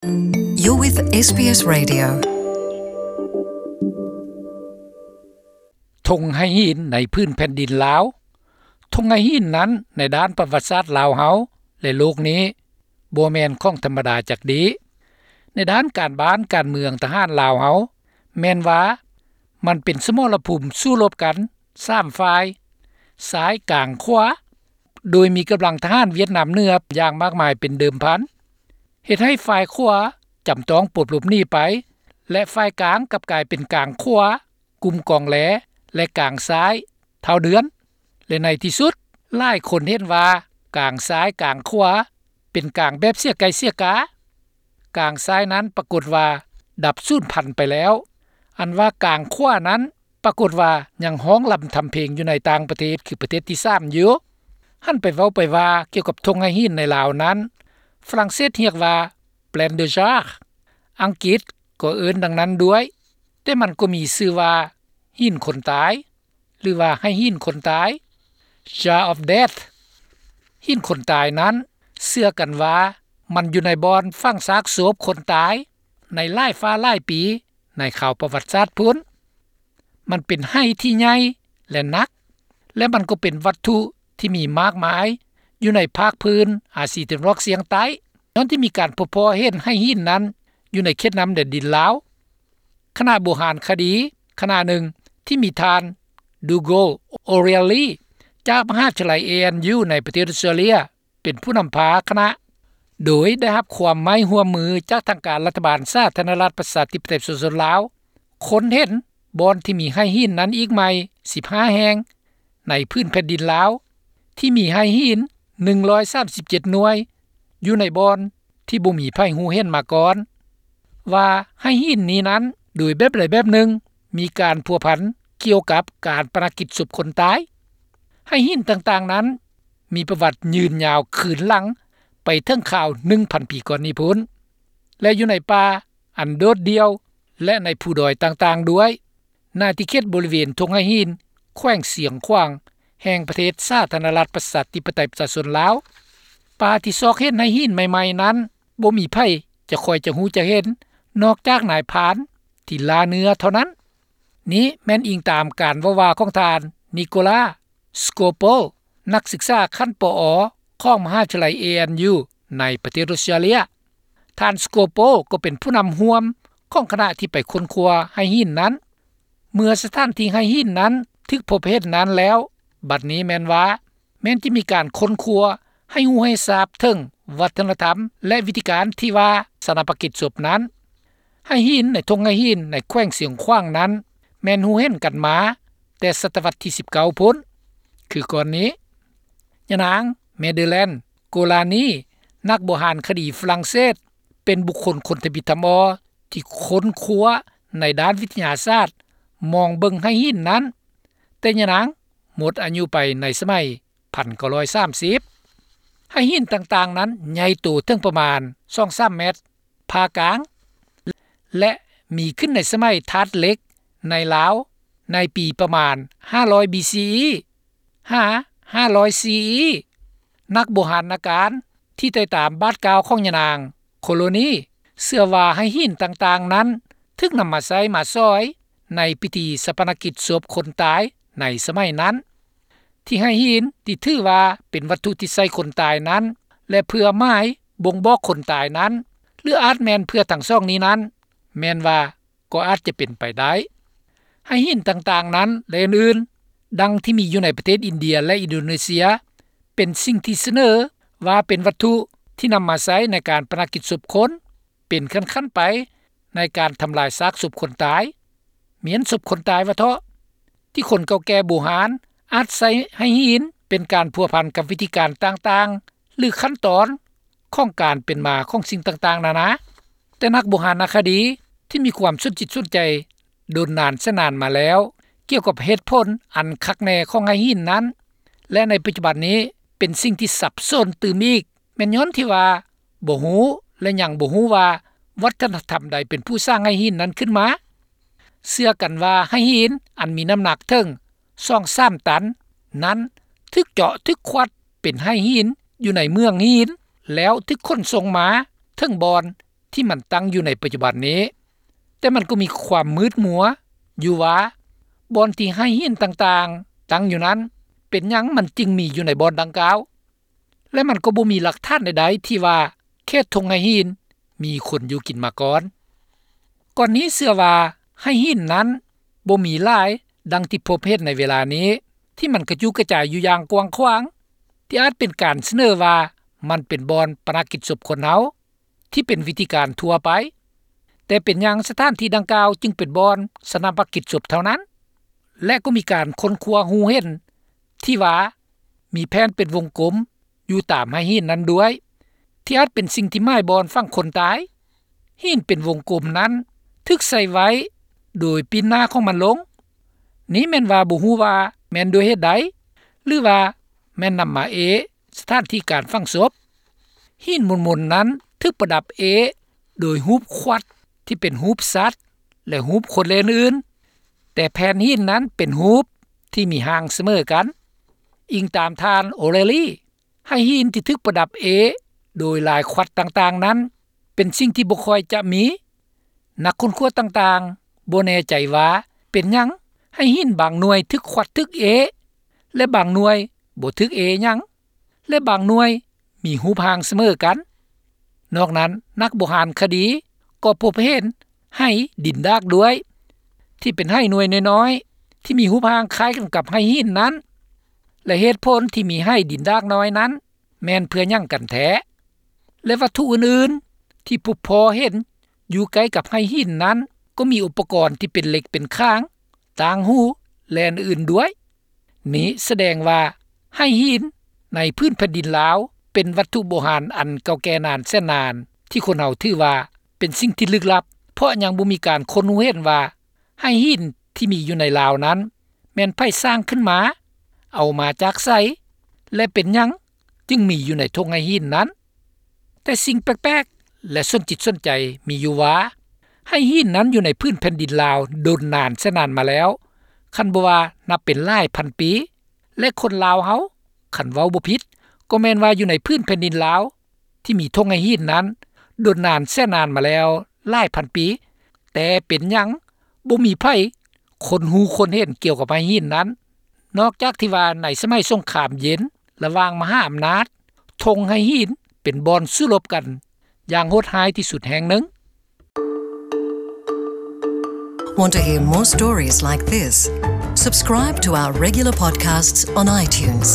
You're with ເອສບີເອສ Radio. ທົ່ງໄຫຫີນໃນພື້ນແຜ່ນດິນລາວ. ທົ່ງໄຫຫີນນັ້ນໃນດ້ານປະຫວັດສາດລາວເຮົາ ແລະ ໂລກນີ້ ບໍ່ແມ່ນຂອງທຳມະດາຈັກດີ້. ໃນດ້ານການບ້ານການເມືອງທະຫານລາວເຮົາ ແມ່ນວ່າມັນເປັນສະໝໍລະພູມສູ້ລົບກັນສາມຝ່າຍ ຊ້າຍ ກາງ ຂວາ ໂດຍມີກຳລັງທະຫານຫວຽດນາມເໜືອຢ່າງມາກມາຍເປັນເດີມພັນ ເຮັດໃຫ້ຝ່າຍຂວາຈຳຕ້ອງປົດຫຼົບໜີໄປ ແລະ ຝ່າຍກາງກັບກາຍເປັນກາງຂວາ ກຸ່ມກອງແລ ແລະ ກາງຊ້າຍ ທ້າວເດືອນ ແລະ ໃນທີ່ສຸດ ຫຼາຍຄົນເຫັນວ່າກາງຊ້າຍກາງຂວາເປັນກາງແບບເສຍໄກ່ເສຍກາ. ກາງຊ້າຍນັ້ນປາກົດວ່າດັບສູນພັນໄປແລ້ວ, ອັນວ່າກາງຂວານັ້ນປາກົດວ່າຍັງຮ້ອງລຳທຳເພງຢູ່ໃນຕ່າງປະເທດ ຄືປະເທດທີສາມຢູ່. ຫັນໄປເວົ້າໄປວ່າກ່ຽວກັບທົ່ງໄຫຫີນໃນລາວນັ້ນ ຝຣັ່ງເສດຮຽກວ່າ Plaine de Jar, ອັງກິດກໍເອີ້ນດັ່ງນັ້ນດ້ວຍ, ແຕ່ມັນກໍມີຊື່ວ່າຫີນຄົນຕາຍ ຫຼືວ່າໄຫຫີນຄົນຕາຍ Jar of Death. ຫີນຄົນຕາຍນັ້ນເຊື່ອກັນວ່າມັນຢູ່ໃນບ່ອນຝັງຊາກສົບຄົນຕາຍໃນຫຼາຍຟ້າຫຼາຍປີໃນຄາວປະຫວັດສາດພຸ້ນ. ມັນເປັນໄຫທີ່ໃຫຍ່ ແລະ ໜັກ ແລະ ມັນກໍເປັນວັດຖຸທີ່ມີມາກມາຍຢູ່ໃນພາກພື້ນອາຊີຕາເວັນອອກສ່ຽງໃຕ້ ຍ້ອນທີ່ມີການພົບພໍ້ເຫັນໄຫຫີນນັ້ນຢູ່ໃນເຂດນ້ຳແດນດິນລາວ. ຄະນະໂບຮານຄະດີຄະນະໜຶ່ງທີ່ມີທ່ານ ດູໂກ ໂອເຣຍລີ ຈາກມະຫາວິທະຍາໄລ ເອເອັນຢູ ໃນປະເທດອົດສະຕຣາເລຍ ເປັນຜູ້ນຳພາຄະນະ ໂດຍໄດ້ຮັບຄວາມໄມ້ຮ່ວມມືຈາກທາງການລັດຖະບານສາທາລະນະລັດປະຊາທິປະໄຕປະຊາຊົນລາວ ຄົ້ນເຫັນບ່ອນທີ່ມີໄຫຫີນນັ້ນອີກໃໝ່ສິບຫ້າແຫ່ງໃນພື້ນແຜ່ນດິນລາວ ທີ່ມີໄຫຫີນໜຶ່ງຮ້ອຍສາມສິບເຈັດໜ່ວຍ ຢູ່ໃນບ່ອນທີ່ບໍ່ມີໃຜຮູ້ເຫັນມາກ່ອນ ວ່າໄຫຫີນນີ້ນັ້ນ ໂດຍແບບໃດແບບໜຶ່ງ ມີການພົວພັນກ່ຽວກັບການປະນະກິດສົບຄົນຕາຍ. ໄຫຫີນຕ່າງໆນັ້ນ ມີປະຫວັດຍືນຍາວຄືນຫຼັງໄປເຖິງຄາວໜຶ່ງພັນປີກ່ອນນີ້ພຸ້ນ ແລະ ຢູ່ໃນປ່າອັນໂດດດ່ຽວ ແລະ ໃນພູດອຍຕ່າງໆດ້ວຍ. ໃນເຂດບໍລິເວນທົ່ງໄຫຫີນ ແຂວງຊຽງຂວາງ ແຫ່ງປະເທດສາທາລະນະລັດປະຊາທິປະໄຕປະຊາຊົນລາວ. ປ່າທີ່ຊອກເຫັນໄຫຫີນໃໝ່ໆນັ້ນ ບໍ່ມີໃຜຈະຄ່ອຍຈະຮູ້ຈະເຫັນ ນອກຈາກນາຍພານທີ່ລ່າເນື້ອເທົ່ານັ້ນ. ນີ້ແມ່ນອີງຕາມການເວົ້າວ່າຂອງທ່ານ ນິໂກລາ ສະໂກໂປ ນັກສຶກສາຂັ້ນ ປອ ຂອງມະຫາວິທະຍາໄລ ເອເອັນຢູ ໃນປະເທດອົດສະຕຣາເລຍ. ທ່ານ ສະໂກໂປ ກໍເປັນຜູ້ນຳຮ່ວມຂອງຄະນະທີ່ໄປຄົ້ນຄວ້າໄຫຫີນນັ້ນ. ເມື່ອສະຖານທີ່ໄຫຫີນນັ້ນຖືກພົບເຫັນນັ້ນແລ້ວ, ບັດນີ້ແມ່ນວ່າ ແມ່ນຈະມີການຄົ້ນຄວ້າໃຫ້ຮູ້ໃຫ້ຊາບເຖິງວັດທະນະທຳ ແລະ ວິທີການທີ່ວ່າຊາປະນະກິດສົບນັ້ນ. ໄຫຫີນໃນທົ່ງໄຫຫີນໃນແຂວງຊຽງຂວາງນັ້ນ ແມ່ນຮູ້ເຫັນກັນມາແຕ່ສະຕະວັດທີສິບເກົ້າພຸ້ນ. ຄືກ່ອນນີ້ ຍານາງ ເມເດີແລນ ໂກລານີ ນັກໂບຮານຄະດີຝຣັ່ງເສດ ເປັນບຸກຄົນຄົນທຳອິດທຳອໍທີ່ຄົ້ນຄວ້າໃນດ້ານວິທະຍາສາດ ມອງເບິ່ງໄຫຫີນນັ້ນ, ແຕ່ຍານາງໝົດອາຍຸໄປໃນສະໄໝ ພັນເກົ້າຮ້ອຍສາມສິບ. ໄຫຫີນຕ່າງໆນັ້ນໃຫຍ່ໂຕເຖິງປະມານສອງສາມແມັດ, ຜ່າກາງ ແລະ ມີຂຶ້ນໃນສະໄໝທາດເຫຼັກໃນລາວໃນປີປະມານຫ້າຮ້ອຍ ບີ ຊີ ອີ ຫາ ຫ້າຮ້ອຍ ຊີ ອີ. ນັກໂບຮານນາການທີ່ໄຕ່ຕາມບາດກ້າວຂອງຍານາງ ໂຄໂລນີ ເຊື່ອວ່າໄຫຫີນຕ່າງໆນັ້ນຖືກນຳມາໃຊ້ມາສອຍໃນພິທີຊາປະນະກິດສົບຄົນຕາຍໃນສະໄໝນັ້ນ. ທີ່ໄຫຫີນທີ່ຖືວ່າເປັນວັດຖຸທີ່ໃສ່ຄົນຕາຍນັ້ນ ແລະ ເພື່ອໝາຍບົ່ງບອກຄົນຕາຍນັ້ນ ຫຼື ອາດແມ່ນເພື່ອທັງສອງນີ້ນັ້ນ ແມ່ນວ່າກໍອາດຈະເປັນໄປໄດ້. ໄຫຫີນຕ່າງໆນັ້ນ ແລະ ອື່ນໆ ດັ່ງທີ່ມີຢູ່ໃນປະເທດອິນເດຍ ແລະ ອິນໂດເນເຊຍ ເປັນສິ່ງທີ່ສະເໜີວ່າເປັນວັດຖຸທີ່ນຳມາໃຊ້ໃນການປະນະກິດສົບຄົນ ເປັນຂັ້ນໆໄປໃນການທຳລາຍຊາກສົບຄົນຕາຍ, ມ້ຽນສົບຄົນຕາຍວ່າເທາະ, ທີ່ຄົນເກົ່າແກ່ບູຮານອາດໃຊ້ໄຫຫີນເປັນການພົວພັນກັບວິທີການຕ່າງໆ ຫຼື ຂັ້ນຕອນຂອງການເປັນມາຂອງສິ່ງຕ່າງໆນານາ. ແຕ່ນັກໂບຮານນະຄະດີທີ່ມີຄວາມສົນຈິດສົນໃຈດົນນານແສນນານມາແລ້ວ ກ່ຽວກັບເຫດຜົນອັນຄັກແນ່ຂອງໄຫຫີນນັ້ນ ແລະ ໃນປັດຈຸບັນນີ້ເປັນສິ່ງທີ່ສັບສົນຕື່ມອີກ ແມ່ນຍ້ອນທີ່ວ່າບໍ່ຮູ້ ແລະ ຍັງບໍ່ຮູ້ວ່າວັດທະນະທຳໃດເປັນຜູ້ສ້າງໄຫຫີນນັ້ນຂຶ້ນມາ. ເຊື່ອກັນວ່າໄຫຫີນອັນມີນ້ຳໜັກເຖິງສອງສາມຕັນນັ້ນ ຖືກເຈາະຖືກຂວັດເປັນໄຫຫີນຢູ່ໃນເມືອງຫີນ ແລ້ວຖືກຂົນສົ່ງມາເຖິງບ່ອນ ທີ່ມັນຕັ້ງຢູ່ໃນປັດຈຸບັນນີ້, ແຕ່ມັນກໍມີຄວາມມືດມົວຢູ່ວ່າ ບ່ອນທີ່ໄຫຫີນຕ່າງໆຕັ້ງຢູ່ນັ້ນ ເປັນຫຍັງມັນຈຶ່ງມີຢູ່ໃນບ່ອນດັ່ງກ່າວ ແລະ ມັນກໍບໍ່ມີຫຼັກຖານໃດໆທີ່ວ່າເຂດທົ່ງໄຫຫີນມີຄົນຢູ່ກິນມາກ່ອນ. ກ່ອນນີ້ເຊື່ອວ່າໄຫຫີນນັ້ນບໍ່ມີຫຼາຍດັ່ງທີ່ພົບເຫັນໃນເວລານີ້ ທີ່ມັນກະຈຸກະຈາຍຢູ່ຢ່າງກວ້າງຂວາງ ທີ່ອາດເປັນການສະເໜີວ່າມັນເປັນບ່ອນປະນະກິດສົບຄົນເຮົາ ທີ່ເປັນວິທີການທົ່ວໄປ, ແຕ່ເປັນຫຍັງສະຖານທີ່ດັ່ງກ່າວຈຶ່ງເປັນບ່ອນຊາປະນະກິດສົບເທົ່ານັ້ນ? ແລະ ກໍມີການຄົ້ນຄວ້າຮູ້ເຫັນທີ່ວ່າມີແຜ່ນເປັນວົງກົມຢູ່ຕາມໄຫຫີນນັ້ນດ້ວຍ ທີ່ອາດເປັນສິ່ງທີ່ໝາຍບ່ອນຝັງຄົນຕາຍ. ຫີນເປັນວົງກົມນັ້ນຖືກໃສ່ໄວ້ໂດຍປີ້ນໜ້າຂອງມັນລົງ. ນີ້ແມ່ນວ່າບໍ່ຮູ້ວ່າແມ່ນດ້ວຍເຫດໃດ ຫຼືວ່າແມ່ນນຳມາເອສະຖານທີ່ການຝັງສົບ. ຫີນມົນໆນັ້ນຖືກປະດັບເອໂດຍຮູບຂວັດທີ່ເປັນຮູບສັດ ແລະ ຮູບຄົນ ແລະ ອື່ນໆ, ແຕ່ແຜ່ນຫີນນັ້ນເປັນຮູບທີ່ມີຮ່າງສະເໝີກັນ. ອີງຕາມທ່ານ ໂອເຣລີ, ໄຫຫີນທີ່ຖືກປະດັບເອໂດຍລາຍຂວັດຕ່າງໆນັ້ນ ເປັນສິ່ງທີ່ບໍ່ຄ່ອຍຈະມີ. ນັກຄົ້ນຄວ້າຕ່າງໆບໍ່ແນ່ໃຈວ່າເປັນຫຍັງໄຫຫີນບາງໜ່ວຍຖືກຂວັດຖືກເອ ແລະ ບາງໜ່ວຍບໍ່ຖືກເອຫຍັງ ແລະ ບາງໜ່ວຍມີຮູບຮ່າງສະເໝີກັນ. ນອກນັ້ນ, ນັກໂບຮານຄະດີກໍພົບເຫັນໄຫດິນດາກດ້ວຍ ທີ່ເປັນໄຫໜ່ວຍນ້ອຍໆ ທີ່ມີຮູບຮ່າງຄ້າຍກັນກັບໄຫຫີນນັ້ນ ແລະ ເຫດຜົນທີ່ມີໄຫດິນດາກນ້ອຍນັ້ນ ແມ່ນເພື່ອຫຍັງກັນແທ້ ແລະ ວັດຖຸອື່ນໆທີ່ພົບພໍ້ເຫັນຢູ່ໃກ້ກັບໄຫຫີນນັ້ນ ກໍມີອຸປະກອນທີ່ເປັນເຫຼັກເປັນຂາງ, ຕ່າງຫູ ແລະ ອື່ນໆດ້ວຍ. ນີ້ສະແດງວ່າໄຫຫີນໃນພື້ນແຜ່ນດິນລາວ ເປັນວັດຖຸໂບຮານອັນເກົ່າແກ່ນານແສນນານ ທີ່ຄົນເຮົາຖືວ່າເປັນສິ່ງທີ່ລຶກລັບ, ເພາະຍັງບໍ່ມີການຄົ້ນຮູ້ເຫັນວ່າໄຫຫີນທີ່ມີຢູ່ໃນລາວນັ້ນ ແມ່ນໃຜສ້າງຂຶ້ນມາ, ເອົາມາຈາກໃສ ແລະ ເປັນຫຍັງຈຶ່ງມີຢູ່ໃນທົ່ງໄຫຫີນນັ້ນ. ແຕ່ສິ່ງແປກໆ ແລະ ສົນຈິດສົນໃຈມີຢູ່ວ່າ ໄຫຫີນນັ້ນຢູ່ໃນພື້ນແຜ່ນດິນລາວດົນນານແສນນານມາແລ້ວ, ຄັນບໍ່ວ່ານັບເປັນຫຼາຍພັນປີ ແລະ ຄົນລາວເຮົາ ຄັນເວົ້າບໍ່ຜິດ ກໍແມ່ນວ່າຢູ່ໃນພື້ນແຜ່ນດິນລາວ ທີ່ມີທົ່ງໄຫຫີນນັ້ນດົນນານແສນນານມາແລ້ວຫຼາຍພັນປີ, ແຕ່ເປັນຫຍັງບໍ່ມີໃຜຄົ້ນຮູ້ຄົ້ນເຫັນກ່ຽວກັບໄຫຫີນນັ້ນ ນອກຈາກທີ່ວ່າໃນສະໄໝສົງຄາມເຢັນລະຫວ່າງມະຫາອຳນາດ, ທົ່ງໄຫຫີນເປັນບ່ອນສູ້ລົບກັນຢ່າງໂຫດຮ້າຍທີ່ສຸດແຫ່ງໜຶ່ງ. Want to hear more stories like this? Subscribe to our regular podcasts on iTunes.